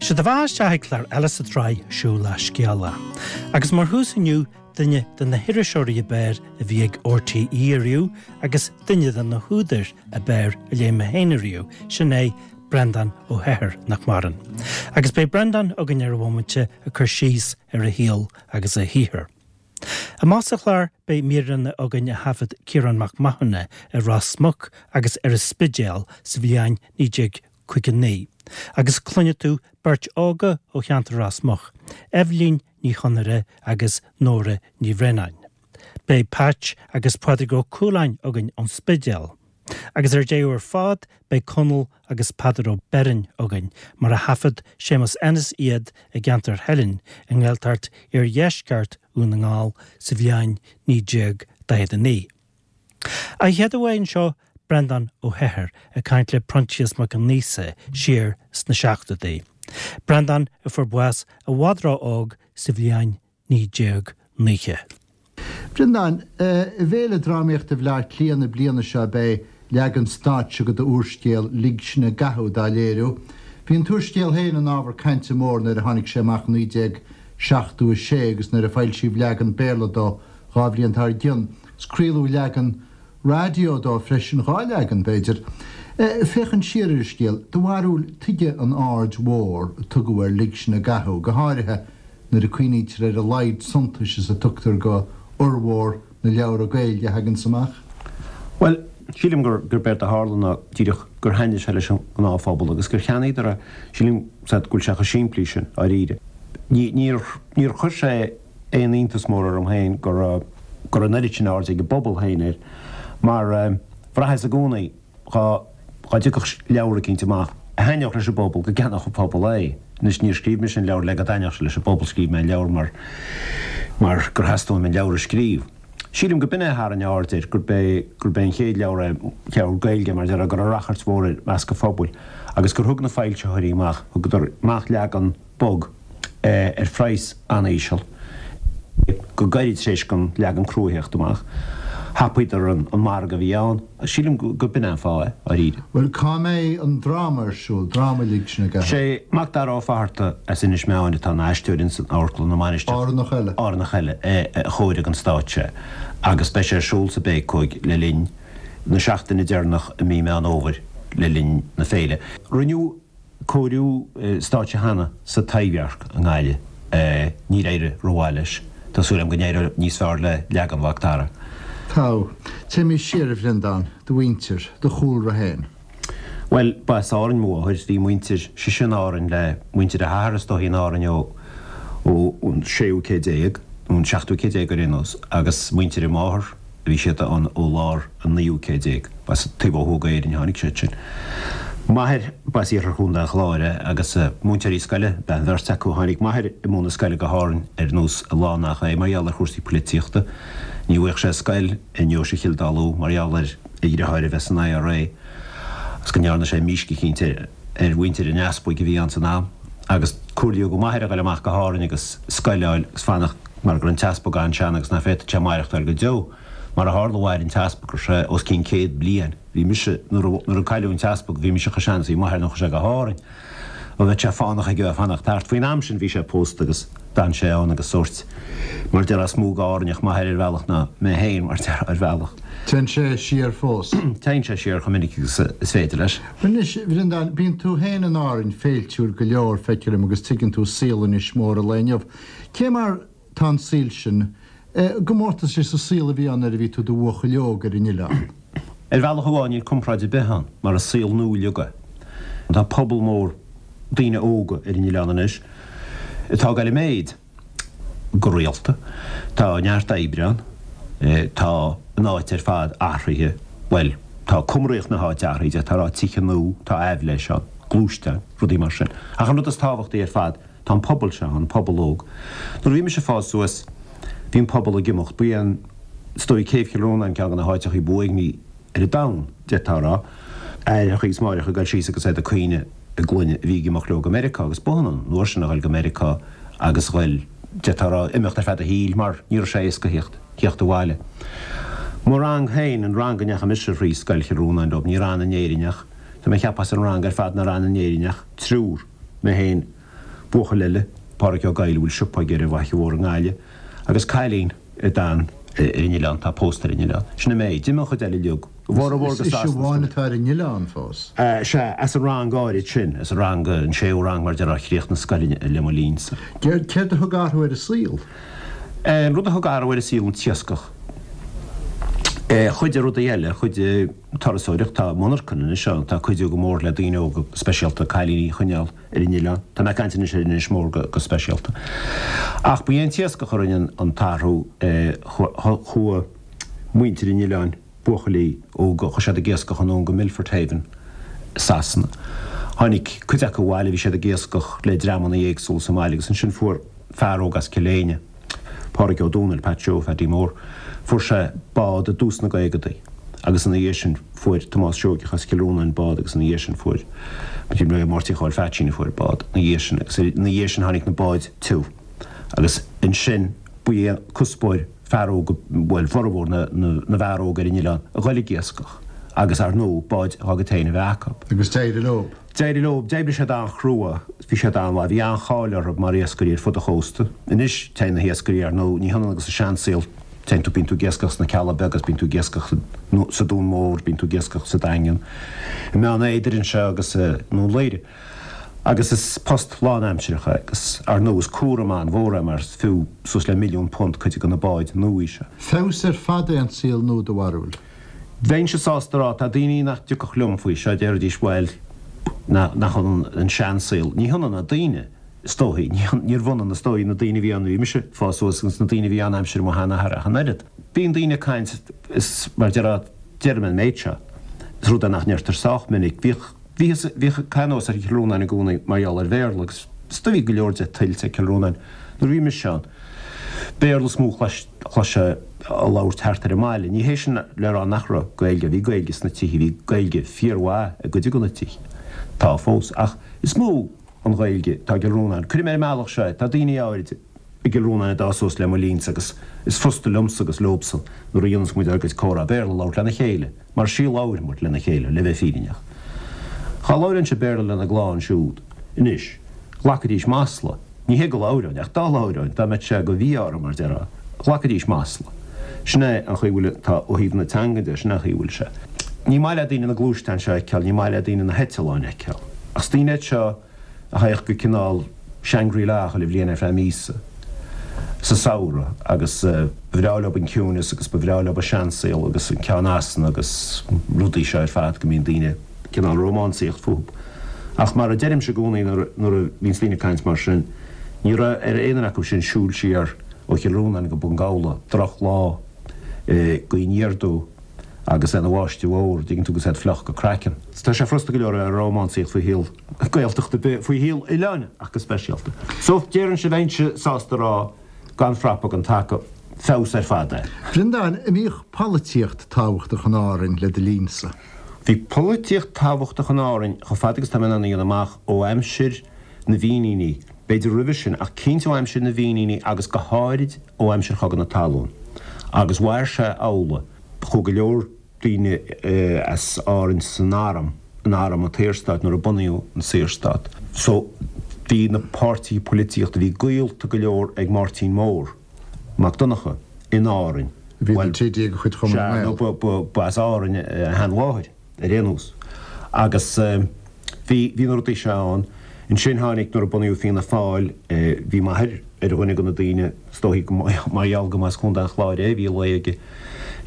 Sé do bheatha isteach ag clár eile sa tsraith Siúl le Scéala. Agus mar thús inniu, duine de na hiriseoirí ab fhearr a bhí ag RTÉ ariamh agus duine de na húdair ab fhearr a léigh mé féin ariamh, sin é Breandán Ó hEithir, nach maireann. Agus beidh Breandán againn ar an bhomaite ag cur síos ar a shaol agus a shaothar. Amach sa chlár beidh míreanna againn a thaifead Ciarán Mac Mathúna i Ros Muc agus ar an Spidéal sa bhliain 1959 agus cluinfidh tú beirt óga ó cheantar Ros Muc, Eibhlín Ní Chonaire agus Nóra Ní Bhraonáin. Beidh Patch agus Pádraig Ó Cualáin againn ón Spidéal. Agus ar deireadh ar fad beidh Conall agus Peadar Ó Beirn againn, mar a thaifead Séamus Ennis iad i gceantar Theilinn i nGaeltacht iardheisceart Dhún na nGall sa bhliain 1949. An chéad uair anseo, Breandán Ó hEithir ag caint le Proinsias Mac Aonghusa siar sna seachtóidí. Breandán a fuair bás i bhfad ró-óg sa bhliain 1990. Breandán, I bhFéile Drámaíochta Bhaile Átha Cliath na bliana seo beidh leagan stáitse de d'úrscéal Lig Sinn i gCathú dá léiriú. Bhí an t-úrscéal féin ina ábhar cainte mór nuair a tháinig sé amach i 1976 agus nuair a foilsíodh leagan Béarla dó 2 bhliain dár gcionn. Is craoladh leagan raidió dó freisin, 2 leagan, b'fhéidir. Féachaint siar ar an scéal, do bharúil, tuige an aird mhór a tugadh ar Lig Sinn i gCathú, go háirithe nuair a cuimhnítear ar a laghad suntais is a tugtar go fhormhór na leabhra Gaeilge a thaganns amach? Bhuel, sílim gur gurb éard a tharla ná díreach gur thaitnigh sé leis an ngnáthphobal agus gur cheannaíodar é. Sílim go bhfuil sé chomh simplí sin, dáiríre. Ní, níor, níor chuir sé aon iontas mór orm féin go raibh, go raibh an oiread sin airde ag an bpobal féin air mar bhraitheas i gcónaí dhá, dhá dtiocfadh leabhar eicínt amach a thaitneodh leis an bpobal, go gceannódh an pobal é. Anois níor scríobh mise an leabhar le go dtaitneodh sé leis an bpobal, scríobh mé an leabhar mar, mar gur theastaigh uaim an leabhar a scríobh. Sílim go b'in é a tharraing aird air, gurb é, gurb é an chéad leabhar é, leabhar Gaeilge mar a déarfá, go raibh rachairt mhór air i measc an phobail agus gur thug na foilsitheoirí amach, thugadar amach leagan bog ar phraghas an-íseal. Go gairid tar éis don leagan crua theacht amach, thapaíodar an margadh a bhí ann. Sílim gur b'in é an fáth é, dháiríre. Bhuel, cá mbeidh an dráma ar siúl, dráma Lig Sinn i gCathú? Sé Macdara Ó Fatharta as Inis Meáin atá ina aisteoir ins an Amharclann na Mainistreach. Árannach eile. Árannach eile a chóirigh an stáitse agus beidh sé ar siúl sa Bhécóig le linn na seachtaine deireanach i mí Meán Fhómhair le linn na féile. Rinneadh cóiriú stáitse cheana sa Taibhdhearc i nGaillimh. Níor éirigh rómhaith leis. Tá súil agam go n-éireoidh níos fearr le leagan Mhac Dara. Tá. Téimís siar, a Bhreandáin, do mhuintir, do chúlra féin. Bhuel, ba as Árainn mo mháthair. Bhí muintir sise in Árainn le muintir a hathar is dóichí in Árainn ó ón séú céad déag, nó an seachtú céad déag ar aon nós, agus muintir a máthar, Bhí siad ann ó lár an naoú céad déag. Ba as taobh ó thuaidh d'Éirinn a tháinig siad sin. M'athair, ba as iarthar Chontae an Chláir é agus múinteoirí scoile ab ea an bheirt acu. Tháinig m'athair ag múineadh scoile go hÁrainn ar nós a lán nach é mar gheall ar chúrsaí poilitíochta. Ní bhfaigheadh sé scoil i ndeoise Chill Dá Lú mar gheall ar a dhriotháir a bheith san IRA agus go ndearna sé mísc eicínt ar ar mhuintir an easpaig a bhí ann san am agus comhairlíodh do m'athair a ghoil amach go hÁrainn agus scoil a fháil agus fanacht mar go raibh an t-easpag an-sean agus ná féadfadh sé maireachtáil go deo. Mar a tharla mhair an t-easpag go raibh sé os cionn 100 bliain. Bhí mise, nuair a nuair a cailleadh an t-easpag bhí mise chomh sean is a bhí m'athair nuair a chuaigh sé go hÁrainn. Bheadh sé fánach aige a bheith ag fanacht thart. Faoin am sin bhí sé pósta agus d'fhan sé ann agus sórt, mar déarfá, is mó d'Árainneach m'athair ar bhealach ná mé féin, mar déarfá, ar bhealach. Téann sé siar fós. Téann sé siar chomh minic agus is féidir leis. Anois, a Bhreandáin, bíonn tú féin in Árainn féiltiúil go leor, feictear dom, agus tuigeann tú saol Inis Mór an lae inniu. Cé mar tá an saol sin, i gcomórtas leis an saol a bhí ann nuair a bhí tú i do bhuachaill óg ar an oileán? Ar bhealach amháin níl comparáid ar bith ann, mar is saol nua uilig é. Tá pobal mór daoine óga ar an oileán anois atá ag dul i méid go rialta. Tá neart oibre ann. Tá an áit ar fad athraithe, bhuel, tá cumraíocht na háite athraithe, d'fhéadfá a rá, tithe nua, tá aibhléis ann, gluaisteáin, rudaí mar sin. Ach an rud is tábhachtaí ar fad, Tá an pobal seo ann, pobal óg. Nuair a bhí mise ag fás suas, bhí an pobal ag imeacht. Ba é an, is dóigh, Céibh Chill Rónáin ceann de na háiteachaí ba uaigní ar an domhan, d'fhéadfá a rá. Aithreachaí is máithreacha ag dul síos agus iad ag caoineadh a gclainne a bhí ag imeacht leo go Meiriceá agus b'ionann an uair sin a dhul go Meiriceá agus dhul, d'fhéadfá a rá, imeacht ar feadh do shaoil mar ní raibh sé éasca theacht, theacht abhaile. Mo rang féin, an rang a ndeachaigh mise thrí Scoil Chill Rónáin leo, níor fhan in Éirinn ach, tá mé ag ceapadh as an rang ar fad nár fhan in Éirinn ach triúr, mé féin. Buachaill eile, Páraic Ó Gabhla, a bhfuil siopa aige ar an bhFaiche Mhór i nGaillimh, agus cailín a d'fhan ar an oileán, atá pósta ar an oileán. Sin an méid. D'imigh an chuid eile uilig. A bhformhór go Is ise Sasana. amháin atá ar an oileán fós. Sea, as an rang áirid sin, as an rang, an séú rang mar a déarfá a chríochnaigh an scoil le mo linnsa. Céard a thug athrú ar an saol? An rud a thug athrú ar an saol an t-iascach. Chuidigh rudaí eile, chuidigh turasóireacht, tá monarchan anois ann, atá ag cuidiú go mór le daoine óga, speisialta cailíní a choinneáil ar an oileán. Tá mé ag caint anois ar Inis Mór go speisialta. Ach ba é an t-iascach a rinne an t-athrú, chuaigh muintir an oileáin, buachaillí óga, chuaigh siad ag iascach anonn go Milford Haven i Sasana. Tháinig cuid acu abhaile, bhí siad ag iascach le dreamanna éagsúla sa mbaile agus ansin fuair fear óg as Cill Éinne, Pádraig Ó Dónaill, Pat Joe Phaidí Mór, fuair sé bád i dtús na gcaogadaí agus ina dhiaidh sin fuair Tomás Seoigeach as Cill Rónáin bád agus ina dhiaidh sin fuair Máirtín Chóil Pheaitsín a fuair bád ina dhiaidh sin agus ina dhiaidh sin tháinig na báid tiubh agus ansin ba é cuspóir fear óg, bhuel, formhór na bhfear óg ar an oileán a ghoil ag iascach agus, ar ndóigh, báid dá gcuid féin a bheith acu. Agus d'éirigh leo. D'éirigh leo. D'oibrigh siad an-chrua. Bhí siad an-mhaith. Bhí an-cháil orthu mar iascairí ar fud an chósta. Anois, téann na hiascairí, ar ndóigh, ní hionann agus an seansaol, téann tú, bíonn tú ag iascach sna Cealla Beaga, bíonn tú ag iascach sa Dún Mór, bíonn tú ag iascach sa Daingean, i mBeann Éadair anseo agus i nDún Laoghaire. Agus is post lánaimsearach é agus, ar ndóigh, is cúram an-mhór é mar is fiú suas le £1,000,000 cuid de na báid nua seo. Feabhas ar fad é an saol nua, do bharúil? Bheinnse sásta a rá, tá daoine nach dtiocfadh liom faoi seo, déarfaidís, bhuel, nach ionann an seansaol. Ní hionann na daoine, is dóichí. Níorbh ionann, is dóigh, na daoine a bhí ann nuair a bhí mise ag fás suas agus na daoine a bhí ann aimsir mo sheanathar ach an oiread. Bíonn daoine ag caint, is mar déarfá, deirim an méid seo, is rud é nach ndeirtear sách minic, bhíodh, Bhíothas, bhíodh pionós ar Chill Rónáin i gcónaí mar gheall ar Bhéarla agus is dóigh bhí go leor de tuillte ag Cill Rónáin nuair a bhí mise ann. Béarla is mó a chloisfeá á labhairt thart ar an mbaile. Ní hé sin le rá nach raibh Gaeilge, bhí Gaeilge sna tithe, bhí Gaeilge fíormhaith i gcuid de na tithe, tá fós, ach is mó an Ghaeilge atá i gCill Rónáin. Cuirfidh mé ar an mbealach seo é, tá daoine áirid i gCill Rónáin a d'fhás suas le mo linnse agus is frusta liomsa agus leobsan nuair a dhéanas muid ár gcuid comhrá Béarla a labhairt lena chéile. Mar is í a labhair muid lena chéile, le bheith fírinneach. Dhá labhróinnse Béarla lena gclann siúd anois, ghlacfaidís masla. Ní hé go labhróinn, ach dá labhróinn, dá mbeadh sé go mhí-ádh orm, mar déarfá, ghlacfaidís masla. Sin é an chaoi a bhfuil, tá, ó thaobh na teanga de, sin é an chaoi a bhfuil sé. Ní maith le daoine na gluaisteáin seo a fheiceáil, ní maith le daoine na heitealláin a fheiceáil. Ach is daoine iad seo a théadh go cineál Shangri-La chuile bhliain ar feadh míosa sa samhradh agus ba bhreá leob an ciúineas agus ba bhreá leob an seansaol agus an ceann easna agus rudaí seo ar fad go mbíonn daoine cineál rómánsaíocht fúthu. Ach mar a deirimse i gcónaí nuair a bhíonns daoine ag caint mar sin, ní raibh ar aon duine acu sin siúl siar ó Chill Rónáin go Bun Gabhla drochlá i gaoth aniar aduaidh agus é ina bháisteach mhór, dtuigeann tú, agus iad fliuch go craiceann. Tá sé frusta go leor a rómánsaíocht faoi shaol Gaeltachta ar bith, faoi shaol oileáin ach go speisialta. So, déarfainnse, bheinnse sásta a rá, gan frapa gan taca, feabhas ar fad é. Bhreandáin, an mbíodh polaitíocht tábhachtach in Árainn le do linnsa? Bhí polaitíocht tábhachtach in Árainn chomh fada agus tá mé in ann a dhéanamh amach, ó aimsir na bhFíníní, b'fhéidir roimhe sin, ach cinnte ó aimsir na bhFíníní agus go háirid ó aimsir Chogadh na Talún. Agus mhair sé amhlaidh. Chuaigh go leor daoine as Árainn san arm, in arm an tSaorstáit nuair a bunaíodh an Saorstát. So bhí na páirtithe polaitíochta, bhí gaolta go leor ag Máirtín Mór Mac Donncha in Árainn. A bhí ina TD de chuid Chumann na Sea, nGael. nó ba as Árainn a sheanmháthair ar aon nós. Agus bhí, bhí na rudaí seo ann. Ansin tháinig, nuair a bunaíodh Fianna Fáil, bhí m'athair ar dhuine de na daoine, Is dóichí go mar gheall go mba as Contae an Chláir é, bhí luí aige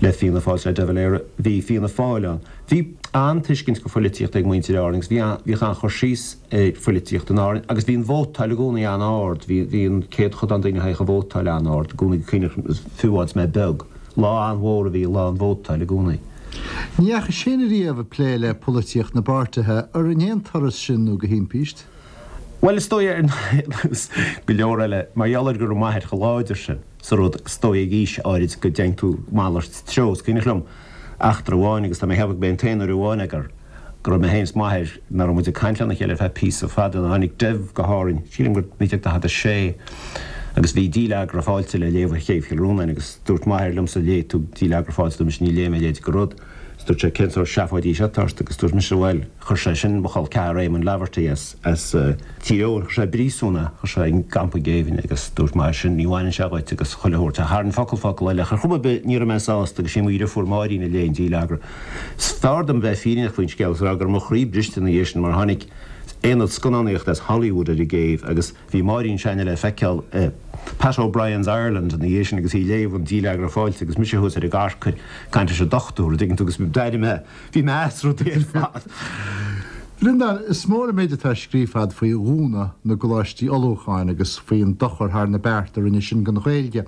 le Fianna Fáil, le De Valera. Bhí Fianna Fáil ann. Bhí an-tuiscint go phoilitíocht ag muintir Árann agus bhí bhíodh an-chur síos ar phoilitíocht in Árainn agus bhí an vótáil i gcónaí an-ard. Bhí bhí an céadchodán daoine a théadh a vótáil an-ard i gcónaí go cuimhneach fiú amháin is mé beag. Lá an-mhór a bhí i lá an vótáil i gcónaí. Ní dheachais féin ariamh ag plé le polaitíocht na bpáirtithe, ar in aon turas sin nó go himpíst? Bhuel, is dóigh, ar nós go leor eile, mar gheall ar go raibh m'athair chomh láidir sin sa rud, is dóigh ag aois áirid go dtéann tú malairt treo. Is cuimhneach liom eachtra amháin, agus tá mé ag ceapadh go b'é an t-aon uair amháin é, gur go raibh mé féin is m'athair, nach raibh muid ag caint lena chéile ar feadh píosa fada, nuair a tháinig Dev go hÁrainn, sílim gur 1946, agus bhí Díleagra Fáilte le léamh ar chéibh Chill Rónáin, agus dúirt m'athair liomsa, léigh tú Díleagra Fáilte, dúirt mise, ní léifidh mé a leithéid de rud. Is dúirt sé, cén sórt seafóidí seo atá ort? Agus dúirt mise, bhuel, chuir sé sin mo chol ceathar Éamonn Laverty as, as Tír Eoghain, chuir sé i bpríosún é, chuir sé i gcampa géibhinn agus dúirt m'athair sin, ní bhaineann sé dhuit agus chuile shórt. Ach thar an focal focal eile, ach ar chuma ar bith, ní raibh mé sásta agus sí mo dheirfiúr Máirín a léigh an dílleagra. Is fearr dom bheith fírinneach faoin scéal is a rá go raibh mo chroí briste ina dhiaidh sin mar tháinig aonad scannánaíochta as Hollywood ar an gcéibh agus Bhí Máirín s'againne le feiceáil i Pat O'Brien's Ireland ina dhiaidh sin agus í ag léamh an dílleagra fáilte agus mise thuas ar an gcarcair ag caint leis an dochtúir, an dtuigeann tú, agus d'airigh mé, bhí mé as rudaí ar fad. Bhreandáin, is mór an méid atá scríofa a'd faoi dhúnadh na gcoláistí ullmhúcháin agus faoin dochar thar na bearta a rinne sin don Ghaeilge.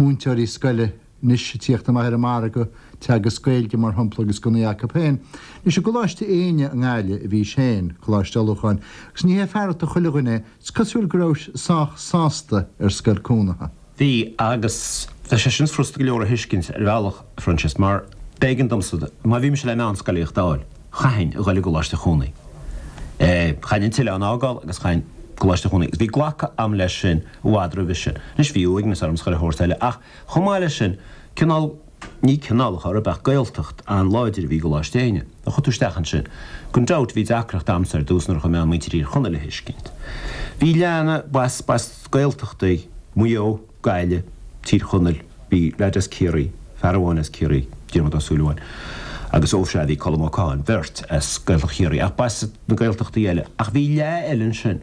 Múinteoirí scoile anois ag tíocht amach ar an margadh, teagasc Gaeilge mar shampla agus gunnaí acu féin. Anois i gColáiste Éinne i nGaillimh a bhís féin, coláiste ullmhúcháin, agus ní hé fearacht do chuile dhuine é, is cosúil go rabhais sách sásta ar scoil cónaithe. Bhí, agus tá sé sin furasta go leor a thuiscint ar bhealach, a Phroinsias, mar b'éigean domsa, má bhí mise le meánscolaíocht a fháil, chaithfinn a dhul i gColáiste Chónaí. Chaithfinn an t-oileán a fhágáil agus chaithfinn Coláiste Chónaí. Agus bhí glactha a'm leis sin i bhfad roimhe sin. Anois bhí uaigneas orm 's chuile shórt eile ach Chomh maith leis sin, cineál, ní cineál a chor ar bith ach Gaeltacht an-láidir a bhí i gColáiste Éinne. A chuaigh tú isteach ansin. Gan dabht, bhí deacracht a'msa ar dtús nuair a chuaigh mé ann muintir Thír Chonaill a thuiscint. Bhí leath, b'as, b'as Gaeltachtaí, Maigh Eo, Gaillimh, Tír Chonaill, bhí leaid as Ciarraí, fear amháin as Ciarraí, Diarmuid Ó Súilleabháin, agus ó sea, bhí Colm Ó Catháin, beirt as Gaeltacht Chiarraí, ach b'as na Gaeltachtaí eile. Ach bhí leath eile ansin,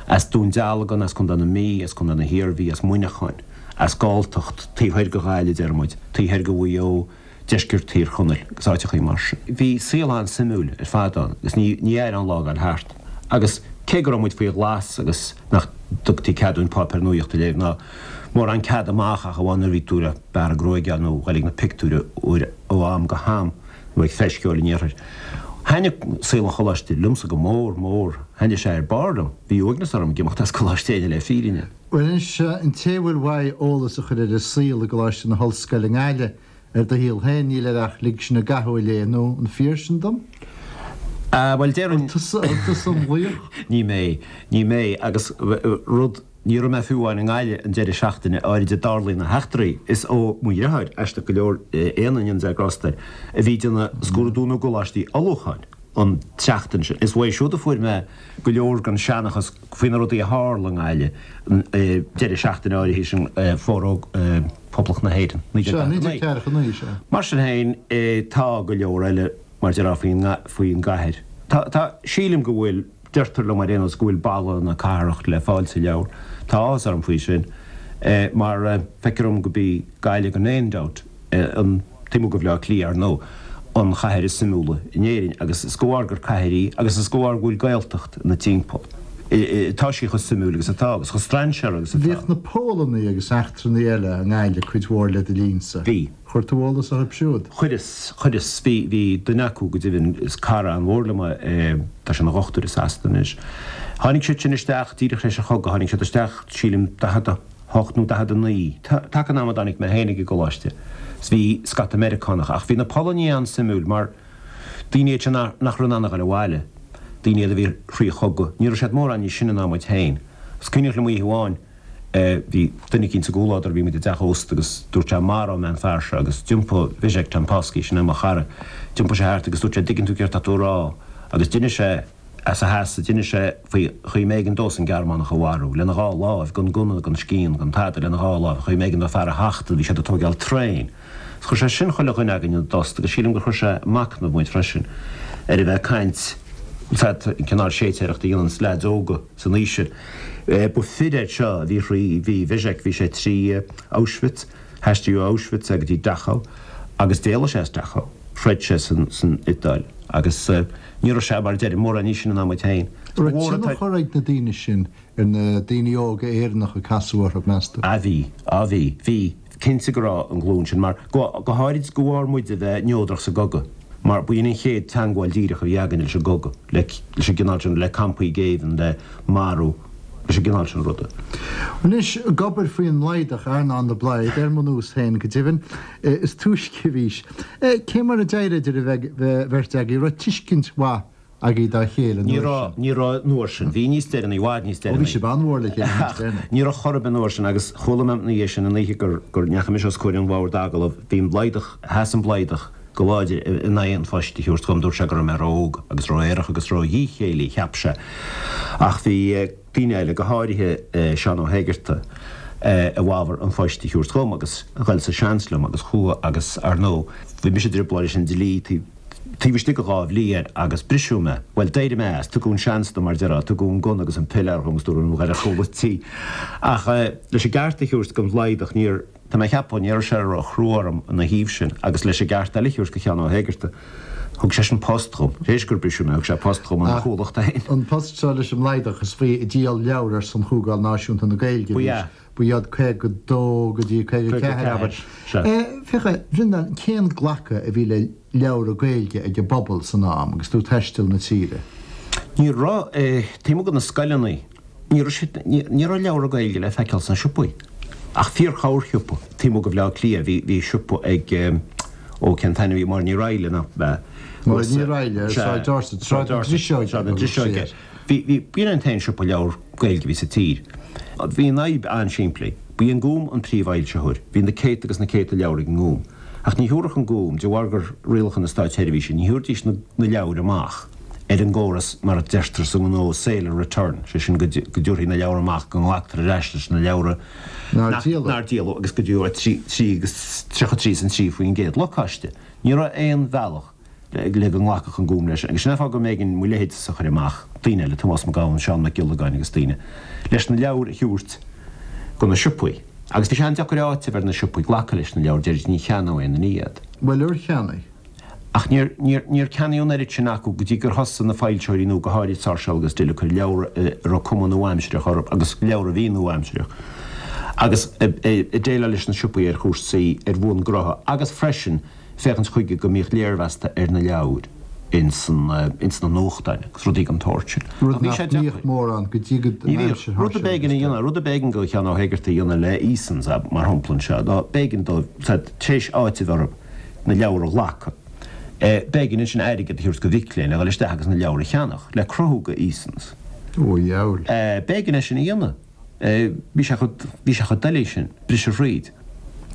as Dún Dealgan, as Contae na Mí, as Contae na hIarmhí, as Muineachán. as Galltacht, taobh thoir de Ghaillimh, deir muid, taobh thoir de Mhaigh Eo, deisceart Thír Chonaill agus áiteachaí mar sin. Bhí saol an-suimiúil ar fad ann agus ní ní éireodh an lá ag dul thart. Agus cé go raibh muid faoi ghlas agus nach dtugtaí cead dúinn páipéar nuaíochta a léamh ná mórán cead amach ach amháin nuair a bhí tú le bearradh gruaige nó dhul ag na pictiúir uair ó am go ham nó ag Feis Cheoil an Iarthair. Thaitnigh saol an choláiste liomsa go mór mór. Thaitnigh sé ar barr liom. Bhí uaigneas orm ag imeacht as Coláiste Éinne le fírinne. Bhuel anois, an té a bhfuil uaidh eolas a chur ar an saol i gColáiste na hOllscoile i nGaillimh, ar do shaol féin, níl air ach Lig Sinn i gCathú a léamh, nó an fíor sin dom? Ah, bhuel, déarfainn. An tusa, an tusa an laoch? Ní mé, ní mé, agus rud, ní raibh mé fiú amháin i nGaillimh an deireadh seachtaine áirid a dtarlaíonn na heachtraí. Is ó mo dheartháir, aisteach go leor, Éanna, go ndéana Dia grásta air, a bhí ag déanamh scrúdú na gcoláistí ullmhúcháin an tseachtain sin. Is uaidh siúd a fuair mé go leor den seanchas faoi na rudaí a tharla i nGaillimh an deireadh seachtaine áirithe sin Foróg Phoblacht na hÉireann, 1949. Sea, 1949, sea. Mar sin féin, tá go leor eile, mar déarfá, faoin faoin gcathair. Tá, tá, sílim go bhfuil, deirtear liom ar aon nós go bhfuil boladh na cathrach le fáil sa leabhar. Tá áthas orm faoi sin, mar feictear dom go b'í Gaillimh gan aon dabht, an taobh amuigh de Bhaile Átha Cliath, ar ndóigh, an chathair is suimiúla in Éirinn agus is de bharr gur cathair í agus is de bharr go bhfuil Gaeltacht ina timpeall. Tá sí chomh suimiúil agus atá agus chomh strainséartha agus atá. Bhíodh na Pólannaigh agus eachtrannaigh eile i nGaillimh cuid mhór le do linnsa. Bhí. Chuir tú eolas orthu siúd? Chuireas, chuireas. Bhí, bhí duine acu go deimhin, is cara an-mhór liom é, tá sé ina dhochtúir i Sasana anois. Tháinig siad sin isteach díreach tar éis an chogaidh, tháinig siad isteach, sílim, 40, 8 nó 49, taca an ama a dtáinig mé féin ag an gcoláiste, 's bhí scata Meiriceánach, ach bhí na Polannaigh an-suimiúil mar daoine iad sin nach raibh in ann a dhul abhaile, daoine iad a bhí thrí chogadh, ní raibh siad mórán níos sine ná muid féin. Is cuimhneach liom oíche amháin, bhí duine eicínt sa gcomhluadar, bhí muid i dteach ósta agus dúirt sé maróidh mé an fear seo agus d'iompaigh Zbyszek Tempowski, sin é mo chara, d'iompaigh sé thart agus dúirt sé dtuigeann tú céard tá tú a rá agus d'inis sé, As a sheasamh, d'inis sé faoi chaoi mb'éigean dósan Gearmánach a mharú, lena dhá láimh, gan gunna, gan scian, gan tada, lena dhá láimh, chaoi mb'éigean dó fear a thachtadh, bhí siad ag tóigeáil traein. Is chuir sé sin chuile dhuine againn ina dtost agus sílim gur chuir sé ag machnamh muid freisin ar a bheith ag caint, an cineál séitéireachta a dhéananns leaids óga san aois sin. Ba fir iad seo a bhí thrí, bhí Zbyszek, bhí sé trí Auschwitz, Haistríodh ó Auschwitz é go dtí Dachau agus d'éalaigh sé as Dachau, throid sé san Iodáil agus ní raibh sé, mar a deirim, mórán níos sine ná muid féin. An raibh tionchar ag na daoine sin ar na daoine óga Éireannacha a casadh orthu, meas tú? Ah bhí, ah bhí, bhí, cinnte go raibh an ghlúin sin mar, go, go háirid de bharr muid a bheith neodrach sa gcogadh, mar ba in an chéad teangmháil díreach a bhí againn leis an gcogadh, le, leis an gcineál sin, le campaí géibhinn, le marú, leis an gcineál sin ruda. Anois, ag obair faoin mBlaghadach, Earnán de Blaghad, ar mo nós féin go deimhin, is túisce a bhís. Cé mar a d'éirigh idir an bheirt agaibh? Raibh tuiscint mhaith agaibh dá chéile an uair sin? Ní raibh an uair sin. Bhí níos deireanaí, i bhfad níos deireanaí. Ó bhí sibh an-mhór le chéile níos deireanaí. Ní raibh chor ar bith an uair sin agus chuala mé ina dhiaidh sin an oíche gur ndeachaigh mise os comhair an bhoird agallaimh, bhí an Blaghdach, sheas an Blaghdach. Go láidir in aghaidh an phoist a thabhairt dhom. Dúirt sé go raibh mé ró-óg agus ró-aerach agus ró-dhíchéillí, cheap sé. Ach bhí daoine eile, go háirithe Seán Ó hÉigeartaigh, i bhfabhar an phoist a thabhairt dhom agus ghoil sa seans liom agus chuaigh agus, ar ndóigh, bhí mise i dtrioblóid leis an dlí taobh istigh de dha bhliain agus briseadh mé. Bhuel, d'éirigh mé as. Tugadh an seans dom, mar a déarfá, tugadh an gunna agus an piléar dhom agus dúradh liom ghoil ar chúl an tí. Ach leis an gceart a thabhairt don Bhlaghdach, níor. Tá mé ag ceapadh, ní raibh sé ró-chrua orm ina thaobh sin, agus leis an gceart eile a thabhairt do Sheán Ó hÉigeartaigh, thug seisean post dhom, tar éis gur briseadh mé, thug sé post dhom ina chomhlacht féin. An post seo leis an mBlaghdach, is faoi ag díol leabhar ar son Chomhdháil Náisiúnta na Gaeilge a bhí sé, ba iad 52 go dtí 54, abair. Féach, a Bhreandáin, cén glacadh a bhí le leabhra Gaeilge ag an bpobal san am agus tú ag taisteal na tíre? Ní raibh, taobh amuigh de na scoileanna, Ní raibh siad, ní raibh leabhra Gaeilge le feiceáil sna siopaí, ach fíor-chorrshiopa taobh amuigh de Bhaile Átha Cliath. Bhí, bhí siopa ag, ó cén t-ainm a bhí, Máire Ní Raghallaigh, nach ea? Máire Ní Raghallaigh ar Sráid Dorset, Sráid na Driseoige. Sráid na Driseoige. Bhí, bhí, b'in an t-aon siopa leabhar Gaeilge a bhí sa tír. Bhí an fhadhb an-simplí. B'í an Gúm an príomhfhoilsitheoir. Bhí na céadta agus na céadta leabhar ag an nGúm. Ach ní thabharfadh an Gúm, de bharr gur rialacha na státseirbhíse, ní thabharfaidís na, na leabhair amach. ar an gcóras mar a deirtear sa ngnó sale or return, sé sin go dtabharfaí na leabhra amach, go nglactar ar ais leis na leabhra nár díoladh agus go dtabharfaí 3 agus 33 is an 3% lacáiste. Ní raibh aon bhealach le go nglacfadh an Gúm leis agus sin an fáth go mb'éigean mo leithéidse a chur amach, daoine eile, Tomás Mac Gabhann, Seán Mac Giollagáin agus daoine, leis na leabhair a thabhairt go na siopaí. Agus bhí sé an-deacair áiteamh ar na siopaí glacadh leis na leabhair, deiridís ní cheannóidh aon duine iad. Bhuel, ar cheannaigh? Ach níor, níor, níor ceannaíodh an oiread sin acu go dtí gur thosaigh na foilsitheoirí nua, go háirid Sáirséal agus Dill, ag cur leabhra a raibh cuma nua-aimsireach orthu agus leabhra a bhí nua-aimsireach agus ag déileáil leis na siopaí ar chúrsaí ar bhonn gnótha agus freisin féachaint chuige go mbíodh léirmheasta ar na leabhair ins ins na nuachtáin agus rudaí den tsórt sin. Rud nach mbíodh mórán go dtí go Ní bhíodh. Rud a b'éigean a dhéanamh, rud a b'éigean do Sheán Ó hÉigeartaigh a dhéanamh le Easons, mar shampla anseo, ná b'éigean dóibh, tar éis áiteamh orthu, na leabhair a ghlacadh. B'éigean ansin airgead a thabhairt do mhic léinn le dhul isteach agus na leabhair a cheannach, le cruthú do Easons. Ó, a dheabhail. B'éigean é sin a dhéanamh. Bhí sé chomh, bhí sé chomh doiligh sin, briseadh thríd.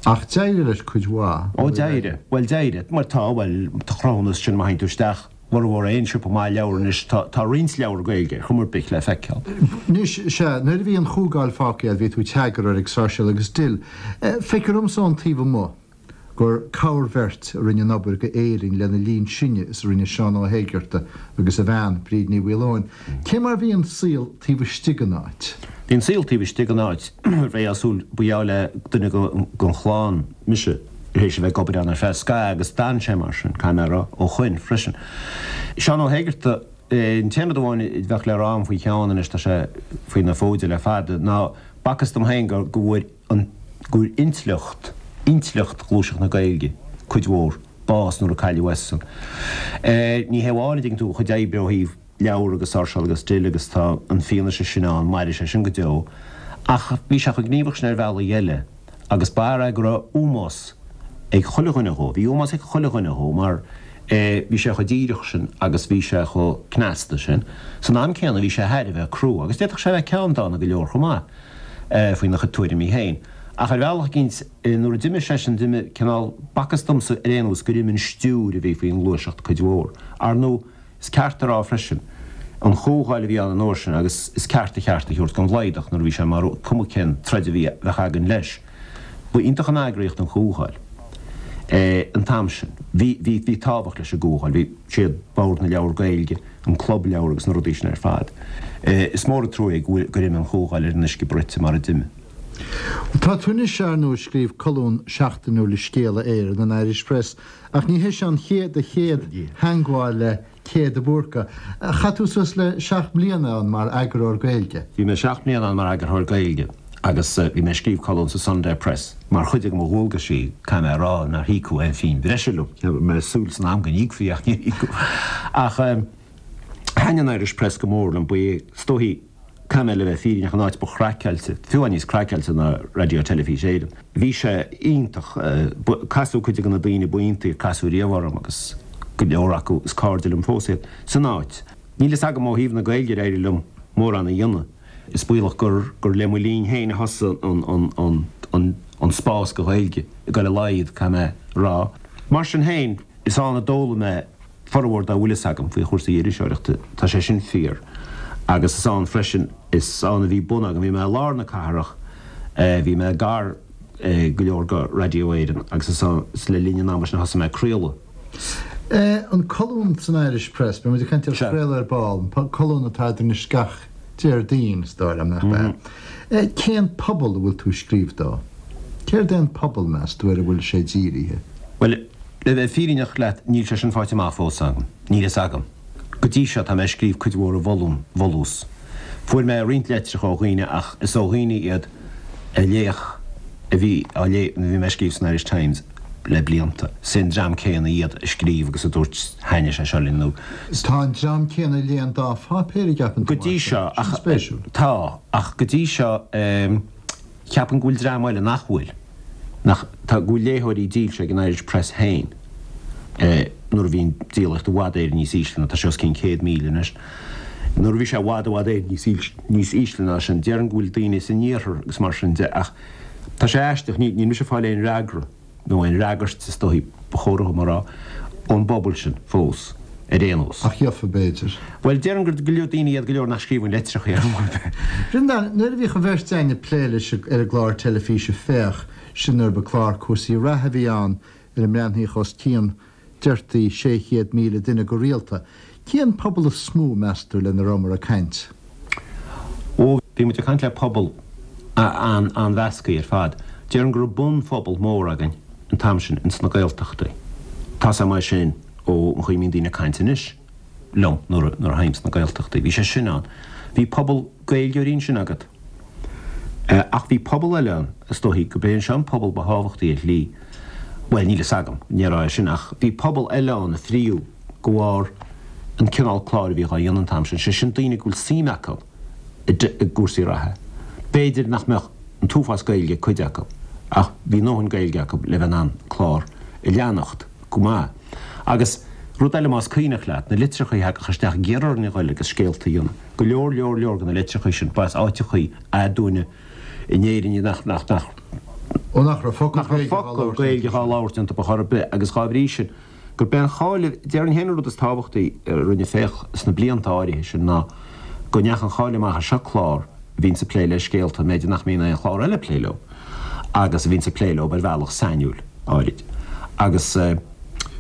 Ach d'éirigh leis cuid mhaith. Ó, d'éirigh. Bhuel, d'éirigh. Mar tá, bhuel, tá cruthúnas sin má théann tú isteach, mhormhór aon siopa maith leabhar anois, tá, tá roinnt leabhar Gaeilge ar chuma ar bith le feiceáil. Anois, sea, nuair a bhí an Chomhdháil fágtha agat, bhí tú id eagarthóir ag Sáirséal agus Dill. Feictear dhomsa ón taobh amuigh gur corrbheirt a rinne an obair go Éirinn lena linn sinne is a rinne Seán Ó hÉigeartaigh agus a bhean, Bríd Ní Mhaoileoin. Cé mar bhí an saol taobh istigh den áit? Bhí an saol taobh istigh den áit, bheifeá ag súil, ba gheall le duine den chlann mise tar éis a bheith ag obair ann ar feadh scaithimh agus d'fhan sé mar sin, caithfidh mé a rá, ó shoin freisin. Seán Ó hÉigeartaigh, an t-aon rud amháin a bheadh le rá agam faoi Sheán anois, tá sé faoi na fóide le fada, ná b'fhacthas dom féin go bhfuair an gur intleacht, intleacht Ghluaiseacht na Gaeilge, cuid mhór, bás nuair a cailleadh eisean. Ní hé amháin, a dtuigeann tú, a chuid oibre ó thaobh leabhar agus Sáirséal agus Dill agus tá an fianaise sin ann, mairfidh sé sin go deo, ach bhí sé chomh gníomhach sin ar bhealaí eile agus b'fhear é go raibh ómós ag chuile dhuine dhó, bhí ómós ag chuile dhuine dhó mar bhí sé chomh díreach sin agus bhí sé chomh cneasta sin. San am céanna bhí sé thar a bheith crua agus d'fhéadfadh sé a bheith ceanndána go leor chomh maith. faoina chuid tuairimí féin. Ach ar bhealach eicínt, nuair a d'imigh seisean, d'imigh cineál, b'fhacthas domsa ar aon nós gur imigh an stiúir a bhí faoin ngluaiseacht cuid mhór. Ar ndóigh, is ceart a rá freisin, an Chomhdháil a bhí ann an uair sin agus is ceart a cheart a thabhairt don Bhlaghdach nuair a bhí sé mar cuma cén troid a bhí, bheadh againn leis. Ba iontach an eagraíocht an Chomhdháil an t-am sin. Bhí, bhí, bhí tábhacht leis an gComhdháil. Bhí siad, Bord na Leabhar Gaeilge, an Club Leabhar agus na rudaí sin ar fad. Is mór an trua é go bhfuil, gur imigh an Chomhdháil ar an uisce bruite mar a d'imigh. Tá tú anois, ar ndóigh, ag scríobh colún seachtainiúil i Scéala Éireann, an Irish Press, ach ní hé seo an chéad, do chéad theangmháil le Cé de Búrca. Chaith tú suas le seacht mbliana ann mar eagarthóir Gaeilge. Bhí mé seacht mbliana ann mar eagarthóir Gaeilge agus bhí mé ag scríobh colún sa Sunday Press mar chuid de mo dhualgaisí, caithfidh mé a rá nár híocadh aon phingin bhreise liom. Bhí mé ag súil san am go n-íocfaí ach níor íocadh. Ach thaitin an Irish Press go mór liom, ba é is dóichí, caithfidh mé le bheith fírinneach, an áit ba chraiceáilte, fiú amháin níos craiceáilte ná Raidió Teilifís Éireann. Bhí sé iontach. Casadh cuid de na daoine ba iontaí a casadh riamh orm agus go leor acu is cairde liom fós iad, san áit. Níl fhios agam ó thaobh na Gaeilge ar éirigh liom mórán a dhéanamh. Is baolach gur gur le mo linn féin a thosaigh an an an spás do Ghaeilge ag dul i laghad, caithfidh mé a rá. Mar sin féin. Is ann a d'fhoghlaim mé formhór dá bhfuil fhios agam faoi chúrsaí iriseoireachta, tá sé sin fíor. Agus is ann freisin, is ann a bhí bun agam, bhí mé i lár na cathrach, bhí mé gar go leor go Radio Éireann agus is ann, is le linn an ama sin a thosaigh mé ag craoladh. An colún san Irish Press, beidh muid ag caint ar chraoladh ar ball, an colún atá agat anois gach Déardaoin, is dóigh liom, nach ea? Cén pobal a bhfuil tú ag scríobh dó? Céard é an pobal, meas tú, ar a bhfuil sé dírithe? Bhuel, le bheith fírinneach leat, níl sé sin faighte amach fós agam. Níl fhios agam. Go dtí seo, tá mé ag scríobh cuid mhór i bhfolús. Fuair mé roinnt litreacha ó dhaoine ach is ó dhaoine iad a léadh, a bhí á léamh nuair a bhí mé ag scríobh san Irish Times le blianta. Is é an dream céanna iad a scríobh agus a dúirt thaitnigh sé seo linn nó. Tá an dream céanna a léigh an dá pháipéar, an gceapann tú, Go dtí seo, ach. Sin spéisiúil. Tá, ach go dtí seo, ceapaim go bhfuil dream eile nach bhfuil, nach, tá, go bhfuil léitheoirí dílse ag an Irish Press féin nuair a bhí an díolaíocht i bhfad Éireann níos ísle ná tá sé os cionn 100,000 anois. Nuair a bhí sé i bhfad, i bhfad Éireann níos níos ísle ná sin, déarfainn go bhfuil daoine san iarthar agus mar sin de ach tá sé aisteach, níl mise ag fáil aon fhreagra, nó aon fhreagairt is dóichí ba chóir dhom a rá, ón bpobal sin fós, ar aon nós. Ach gheofa, b'fhéidir. Bhuel, déarfainn gur go leor daoine iad go leor nach scríobhann litreacha ar chor ar bith. Breandán, nuair a bhíodh an bheirt againn ag plé leis ar an gclár teilifíse Féach, sin nuair ba clár cúrsaí reatha a bhí ann, ar a mbreathnaíodh os cionn, deirtí, 600,000 duine go rialta. Cén pobal is mó, meas tú, lena rabhamar ag caint? Ó, bhí muid ag caint le pobal an-mheasctha ar fad. Déarfainn go raibh bunphobal mór againn an t-am sin ins na Gaeltachtaí. Tá's agam é sin ó an chaoi a mbíonn daoine ag caint anois liom nuair a théim sna Gaeltachtaí. Bhí sé sin ann. Bhí pobal Gaeilgeoirí ansin agat. Ach bhí pobal eile ann, is dóichí go b'é seo an pobal ba thábhachtaí ar shlí, bhuel, níl fhios agam, ní raibh é sin, ach bhí pobal eile ann a fríodh de bharr an cineál cláir a bhíodh á dhéanamh an t-am sin, sé sin daoine go bhfuil suim acu i gcúrsaí reatha. B'fhéidir nach mbeadh an t-uafás Gaeilge ag cuid acu, ach bhí a ndóthain Gaeilge acu le bheith in ann clár a leanacht go maith. Agus rud eile más cuimhneach leat, na litreacha a thagadh isteach ag iarraidh orainn a ghoil agus scéalta a dhéanamh. Go leor, leor, leor de na litreacha sin, ba as áiteachaí aduaine in Éirinn iad nach, nach, nach. Ó nach raibh focal nach raibh focal Gaeilge dhá labhairt iontu ar chor ar bith agus dhá bhrí sin, gurb é an cháil, déarfainn féin an rud is tábhachtaí a rinne Féach sna blianta áirithe sin ná go ndeachaigh an cháil amach ar seo clár a bhíonns ag plé le scéalta, b'fhéidir nach mbíonn aon chlár eile ag plé leo agus a bhíonns ag plé leo ar bhealach sainiúil áirid agus.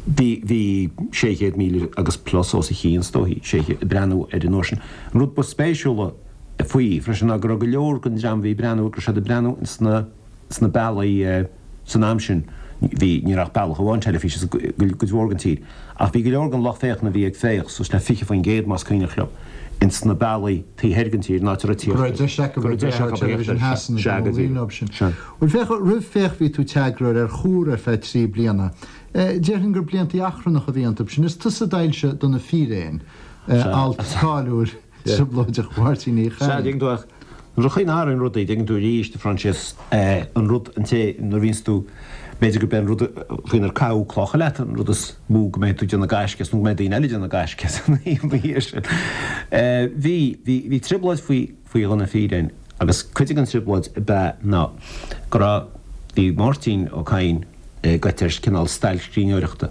Bhí, bhí 600,000 agus plus os a chionn, is dóichí, 600, ag breathnú air an uair sin. An rud ba spéisiúla faoi freisin ná go raibh go leor den dream a bhí ag breathnú, go raibh siad ag breathnú sna, sna bealaí san am sin, bhí, ní raibh ach bealach amháin teilifíse sa gcuid mhór den tír, ach bhí go leor den lucht féachana a bhí ag féach, suas le 20% más cuimhneach liom, ins na bealaí taobh thoir den tír, in áit a raibh Go raibh deis acu a bheith ar Television Theas Sea, go díreach. Bhuel, féach, roimh Féach bhí tú i t'eagarthóir ar Chomhar ar feadh 3 bliana. Déarfainn gur bliantaí achrannacha a bhí iontu sin. Is tusa a d'fhoilsigh Do na Fíréin, alt cáiliúil trioblóideach Mháirtín Uí Sea, Chadhain. dtuigeann tú, ach nuair a chaoi n-athraíonn rudaí, dtuigeann tú arís, a Phroinsias, an rud, an té, nuair a bhíonns tú, b'fhéidir gurb é an rud faoinar caitheadh clocha leat an rud is mó go mbeidh tú ag déanamh gaisce as nó go mbeidh daoine eile ag déanamh gaisce as ina dhiaidh sin. Bhí, bhí, bhí trioblóid faoi, faoi Do na Fíréin agus cuid den trioblóid ab ea ná go raibh, bhí Máirtín Ó Cadhain gaibhte ar chineál stailc scríbhneoireachta.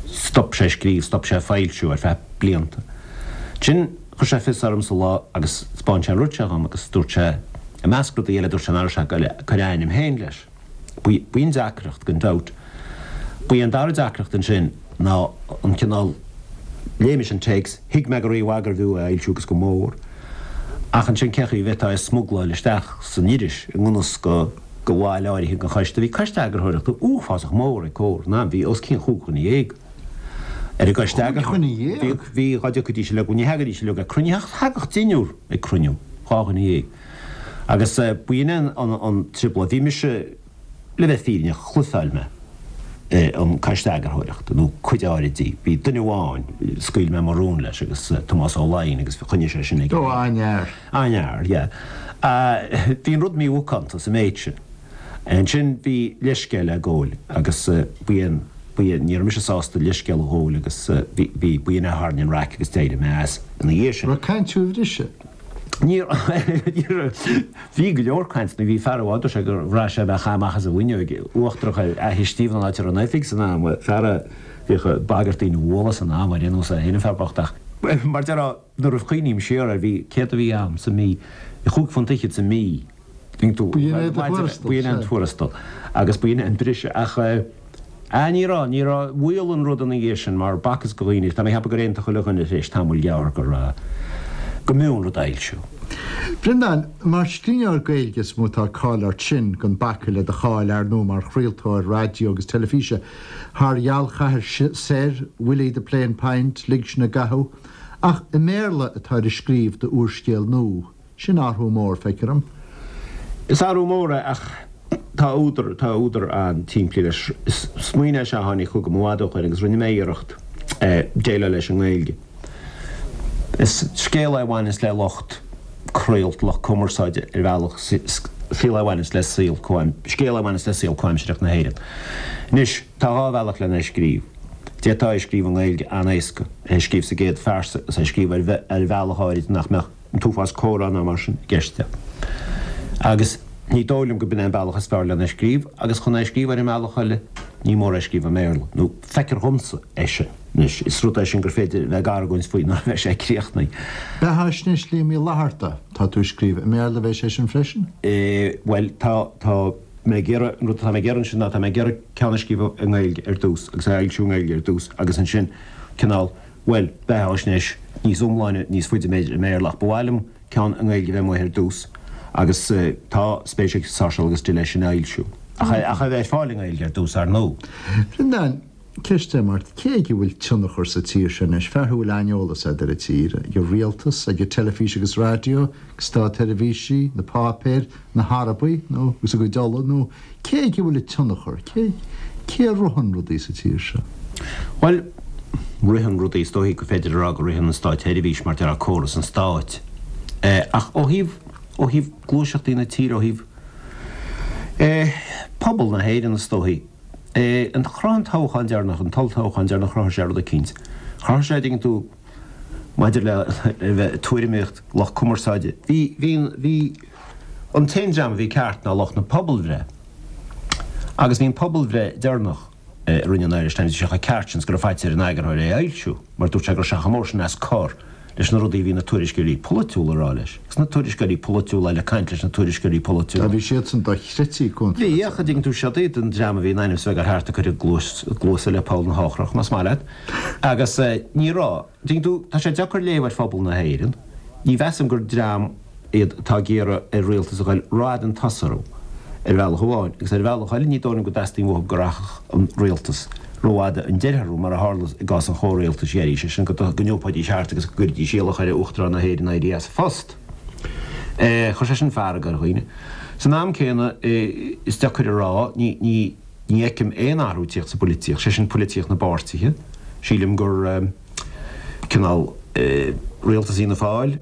Stop sé ag scríobh, stop sé ag foilsiú ar feadh blianta. Ansin chuir sé fios ormsa lá agus 'spáin sé an rud seo dhom agus dúirt sé, i measc rudaí eile, dúirt sé nach raibh sé ag goil ag cur a ainm féin leis. B'in deacracht, gan dabht. Ba í an dara deacracht ansin ná an cineál, léigh mise an téacs, thuig mé go rímhaith gurbh fhiú é a fhoilsiú agus go mór, ach ansin cén chaoi a bhféadfá é a smugláil isteach san iris i ngan fhios do bhaill áirithe den choiste. Bhí coiste eagarthóireachta uafásach mór ag Comhar an am, bhí os cionn chúig dhuine dhéag ar an gcoiste eagarthóireachta. Bhí, bhí, dhá dtiocfaidís uilig, ní thagaidís uilig ag cruinniú, ach thagadh deichniúr ag cruinniú, dhá dhuine dhéag. Agus b'in é an trioblóid. Bhí mise, le bheith fírinneach, chluichfeáil mé an coiste eagarthóireachta, nó cuid áirid di. Bhí duine amháin, scaoil mé mo rún leis, agus Tomás Ó Laighin, agus choinnigh sé sin aige. Ó, an-fhear. An-fhear, yeah. Bhí an rud mímhacánta sa méid sin. Ansin bhí leithscéal le gabháil agus b'in, b'in, ní raibh mise sásta leithscéal a ghabháil agus bhí, bhí, b'in é a tharraing an raic agus d'éirigh mé as ina dhiaidh sin. Raibh caint thú a bhriseadh? Ní raibh. Bhí go leor caint, nó bhí fear amháin, dúirt sé gur bhraith sé bheadh amach as an bhfuinneoig uachtarach ar Fhaiche Stiabhna an áit a raibh an oifig san am, fear a bhíodh ag bagairt daoine a bhualadh san am, ar aon nós é féin an fear bocht ach, mar déarfá, nuair a chuimhním siar air, bhí, céard a bhí a'm sa mí, chúig phunt fhichead sa mí. B'in é do thuarastal, B'in é an tuarastal agus b'in é an briseadh ach eh ní raibh, ní raibh, mhaolaigh an rud ina dhiaidh sin mar b'fhacthas do dhaoine, tá mé ag ceapadh gur aontaigh chuile dhuine tar éis tamaill ghearr go raibh, go mb'fhiú an rud a fhoilsiú. Breandán, Mar scríbhneoir Gaeilge is mó atá cáil ort sin, gan bacadh le do cháil, ar ndóigh, mar chraoltóir raidió agus teilifíse, thar Ghealchathair Soir, Willie the Plain Pint, Lig Sinn i gCathú. Ach i mBéarla atáir ag scríobh d'úrscéal nua. Sin athrú mór, feictear dom. Is athrú mór é ach tá údar, tá údar an-tsimplí leis. Is smaoineamh é seo a tháinig chugam i bhfad ó shoin agus rinne mé iarracht déileáil leis i nGaeilge. Is scéal é a bhaineas le lucht craolta, lucht cumarsáide ar bhealach, saol é a bhaineas le saol comhaim, scéal é a bhaineas le saol comhaimsireach na hÉireann. Anois, tá dhá bhealach lena scríobh. D'fhéadfá é a scríobh i nGaeilge an-éasca, é a scríobh sa gcéad phearsa agus é a scríobh ar bhealach áirid nach mbeadh an t-uafás comhrá ná mar sin i gceist. Agus ní dóigh liom go b'in é an bealach is fearr lena scríobh, agus chun é a scríobh ar an mbealach eile, ní mór é a scríobh i mBéarla, nó feictear dhomsa é sin. Anois, is rud é sin gur féidir a bheith ag argóint faoi nuair a bheidh sé críochnaithe. Beathaisnéis Liam Uí Fhlatharta, tá tú ag scríobh i mBéarla, bheidh sé sin freisin? Bhuel, tá, tá mé ag iarraidh, an rud atá mé ag iarraidh ansin ná tá mé ag iarraidh ceann a scríobh i nGaeilge ar dtús, agus é a fhoilsiú i nGaeilge ar dtús, agus ansin cineál, Bhuel, beathaisnéis níos iomláine níos faide b'fhéidir i mBéarla ach ba mhaith liom ceann i nGaeilge a bheith amuigh ar dtús agus tá spéis ag Sáirséal agus Dill é sin a fhoilsiú. Ach é a bheith ar fáil i nGaeilge ar dtús, ar ndóigh. Bhreandáin, ceist agam ort, cé aige a bhfuil tionchar sa tír seo anois? Fear thú a bhfuil aineolas agat ar an tír, ag an rialtas, ag an teilifís agus raidió, ag státsheirbhísí, na páipéir, na hArabaigh nó agus a gcuid ola nó cé aige a bhfuil an tionchar? Cé cé a ritheann rudaí sa tír seo? Bhuel, ritheann rudaí, is dóichí gur féidir a rá go ritheann an státsheirbhís mar déarfá córas an stáit. Ach ó thaobh, ó thaobh gluaiseachtaí na tíre, ó thaobh eh pobal na hÉireann is dóichí, eh an chruthaigh an toghchán deireanach, an t-olltoghchán deireanach chruthaigh sé rud eicínt. Chruthaigh sé, dtuigeann tú, maidir le bheith ag tuairimíocht, lucht cumarsáide. Bhí, bhí, bhí, an t-aon dream a bhí ceart ná lucht na pobalbhreith. Agus bhí an pobalbhreith deireanach a rinne an Irish Times, bhí sé chomh ceart sin is go raibh faitíos ar an eagarthóir é a fhoilsiú, mar dúirt sé go raibh sé chomh mór sin as cor leis na rudaí a bhí na tuairisceoirí polaitiúla a rá leis. Agus na tuairisceoirí polaitiúla eile ag caint leis na tuairisceoirí polaitiúla. Tá, bhí siadsan dochreidte contráilte. Bhí, ach an dtuigeann tú, siod iad an dream a bhí in ainm is a bheith ag dul thart ag cur a gcluasa le poll na heochrach, más maith leat. Agus ní raibh. Tuigeann tú, tá sé deacair léamh ar phobal na hÉireann. Ní mheasaim gur dream iad atá ag iarraidh ar rialtas a ghoil rófhada chun tosaigh orthu, ar bhealach amháin, agus ar bhealach eile ní dóigh liom go dteastaíonn uathu go rachadh an rialtas rófhada chun deiridh orthu, mar a tharla i gcás an chomhrialtais dheiridh, sé sin go n-iompóidís thart agus go gcuirfidís iallach ar Uachtarán na hÉireann éirí as a phost. Chuir sé sin fearg ar dhaoine. San am céanna, is deacair a rá, ní. Ní fheicim aon athrú ag tíocht sa bpoilitíocht, sé sin poilitíocht na bpáirtithe. Sílim gur cineál rialtas Fhianna Fáil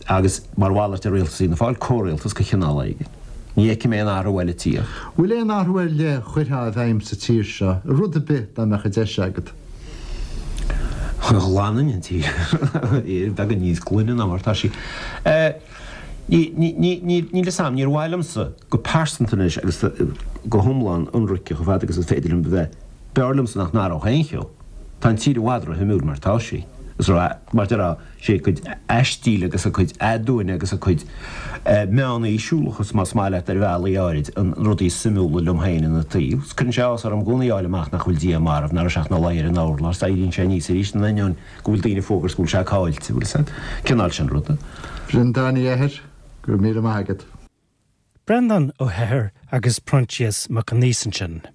agus mar mhalairt ar rialtas Fhianna Fáil, comhrialtas de chineál éigin. Ní fheicim aon athrú eile ag tíocht. Bhfuil aon athrú ar leith a chuirfeá i bhfeidhm sa tír seo, rud ar bith, dá mbeadh an deis agat? Ghlanfainn an tír. Beagán níos glaine ná mar atá sí. Níl fhios a'm, níor mhaith liomsa go pearsanta anois agus go hiomlán ionraice chomh fada agus is féidir liom a bheith, b'fhearr liomsa nach n-athródh aon cheo. Tá an tír i bhfad ró-shuimiúil mar atá sí. Is ró, mar déarfá, sé a cuid aistíl agus a cuid aduaine agus a cuid meánaoisiúlachas, más maith leat, ar bhealaí áirid, an rudaí is suimiúla liom féin ina taobh. Is cuireann sé áthas orm i gcónaí a fháil amach nach bhfuil Dia marbh, nach raibh sé ach ina luí ar an urlár, is éiríonn sé aníos arís in ainneoin go bhfuil daoine ag fógairt go bhfuil sé caillte, bhfuil fhios a'd. Cineál sin ruda. Breandán Uí Eithir, go raibh míle maith agat. Breandán Ó hEithir agus Proinsias Mac Aonghusa ansin.